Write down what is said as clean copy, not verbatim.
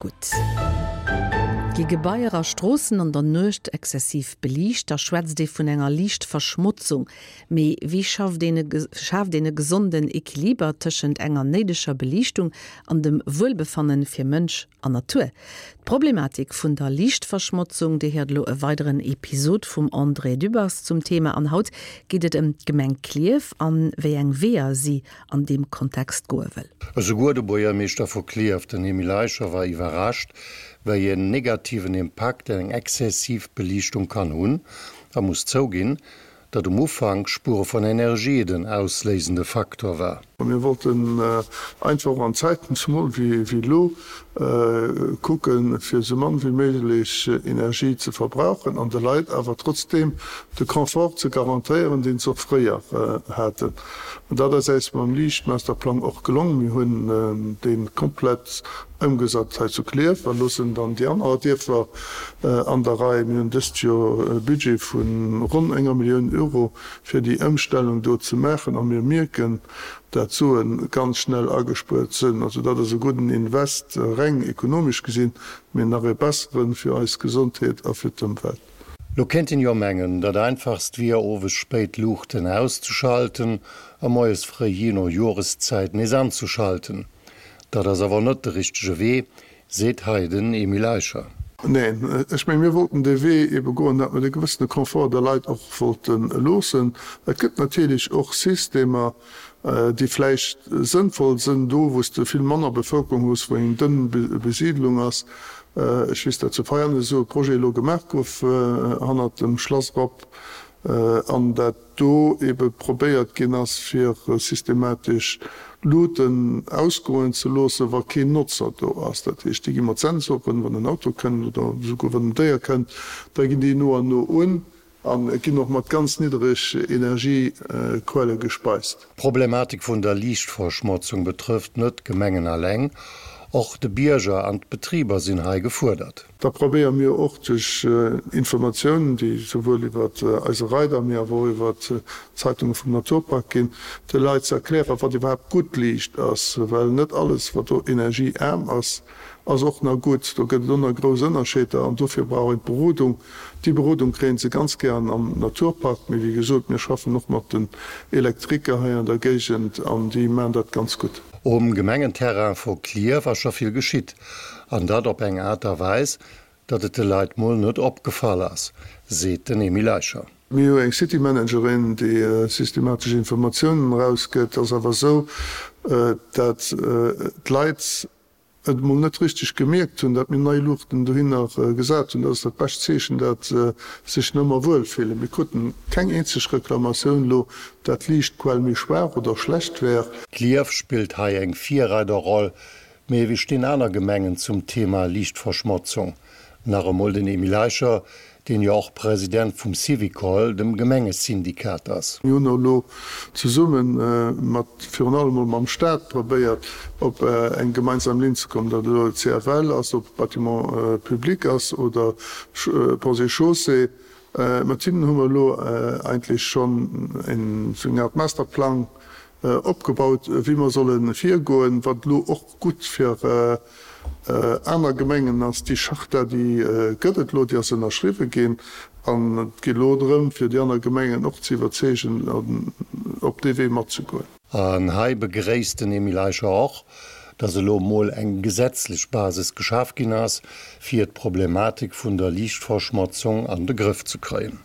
Gutt. Gi Gebaier a Stroossen an der Nuecht exzessiv beliicht, da schwätzt ee vun enger Liichtverschmotzung. Mee wéi schafft een e schaaft een e gesonden Equiliber tëschent enger néideger Beliichtung an dem Wuelbefannen fir Mënsch an Natur? D'Problematik vun der Liichtverschmotzung, Dir héiert elo e weideren Episod vum André Dübbers zum Thema an haut geet et ëm d'Gemeng Klierf an wéi eng Weeër si an deem Kontext goe wëll. Esouguer de Buergermeeschter vu Klierf, den Emile Eicher, war iwwerrascht, wéi en negativen Impakt eng exzessiv Beliichtung kann hunn a muss zouginn, datt um Ufank Spuere vun Energie den ausléisende Faktor war. Mir wollten einfach och an Zäiten, zemol wéi elo, kucken, fir esou mann wéi méiglech Energie ze verbrauchen an de Leit awer trotzdeem de Confort ze garantéieren, deen se och fréier haten. An dat ass äis mam Liichtmasterplang och gelong. Mir hunn dee komplett ëmgesat hei zu Klierf a loossen dann déi aner Dierfer an der Rei. Mir hunn dëst Joer e Budget vu ronn enger Millioun Euro, fir déi Ëmstellung do ze maachen a mir mierken, dat d'Suen ganz schnell agespuert sënn. Also dat ass e gudden Invest, reng ekonomesch gesinn, mee nach e besseren fir eis Gesondheet a fir d'Ëmwelt. Lo kéint een jo mengen, dat einfachst wier owes spéit d'Luuchten auszeschalten a moies fréi jee no Joreszäit nees anzeschalten. Dat ass awer net de richtege Wee, seet hei den Emile Eicher. Neen, ech mengen, mir wollten dee Wee ebe goen, dat mer de gewëssene Confort de Leit och wollte loossen. Et gëtt natierlech och Systemer, déi vläicht sënnvoll sënn do, wou s de vill manner Bevëlkerung hues, wou eng dënn Besiidlung ass. Ech weess, dat zu Veianen esou e Projet elo gemaach gouf hannert dem Schlass erop an dat do ebe probéiert ginn ass, fir systematesch Luuten ausgoen ze loossen, wa keen Notzer do ass. Dat heescht, déi gi mat Sensoren, wann en Auto kënnt oder esouguer wann en Déier kënnt, da ginn déi no an no un a ginn och mat ganz niddereg Energiequelle gespeist. D'Problematik vun der Liichtverschmotzung betrëfft net d'Gemengen alleng, och de Bierger an d'Betriber sinn hei gefuerdert. Da probéiere mir och duerch Informatiounen, déi souwuel iwwer eise Reider, mee awer och iwwer d'Zeitunge vum Naturpark ginn, de Leit ze erklären, wat iwwerhaapt gutt Liicht ass. Well net alles, wat do energieaarm ass, ass och nach gutt. Do gëtt et och nach grouss Ënnerscheeder an dofir brauch een d'Berodung. Déi Berodung kréien se ganz gären am Naturpark, mee wéi gesot, mir schaffen och mat den Elektriker hei an der Géigend an déi maachen dat ganz gutt. Um Gemengenterrain vu Klierf ass scho vill geschitt. An dat op eng Aart a Weis, datt et de Leit mol net opgefall ass, seet den Emile Eicher. Mir hu eng City Managerin, déi systematesch Informatiounen erausgëtt. Et ass awer esou, dat d'Leit et mol net richteg gemierkt hunn, dat mir nei Luuchten dohinner gesat hunn. Dat ass dat bescht Zeechen, dat se sech nëmmer wuel fillen. Mir kruten keng eenzeg Reklamatioun elo, dat d'Liichtquell méi schwaach oder schlecht wär. Klierf spillt hei eng Virreiderroll, Mee wéi stinn aner Gemengen zum Thema Liichtverschmotzung? Nach emol den Emile Eicher, deen jo och President vum Syvicol, dem Gemengesyndikat ass. Mir hunn elo zesumme mat, virun allem mol mam Staat probéiert, op eng gemeinsam Linn ze kommen, datt elo CFL ass, ob Bâtiments publics ass oder Ponts et Chaussées. Mat hinnen hu mer elo eigentlech schonn esou eng Art Masterplang opgebaut, wéi mer solle virgoen, wat elo och gutt fir aner Gemengen ass. Déi Charta, déi gëtt et elo, déi ass ënnerschriwwe ginn an et geet elo drëm, fir déi aner Gemengen och ze iwwerzeegen, op dee Wee matzegoen. An hei begréisst den Emile Eicher och, datt elo mol eng gesetzlech Basis geschaf ginn ass, fir d'Problematik vun der Liichtverschmotzung an de Grëff ze kréien.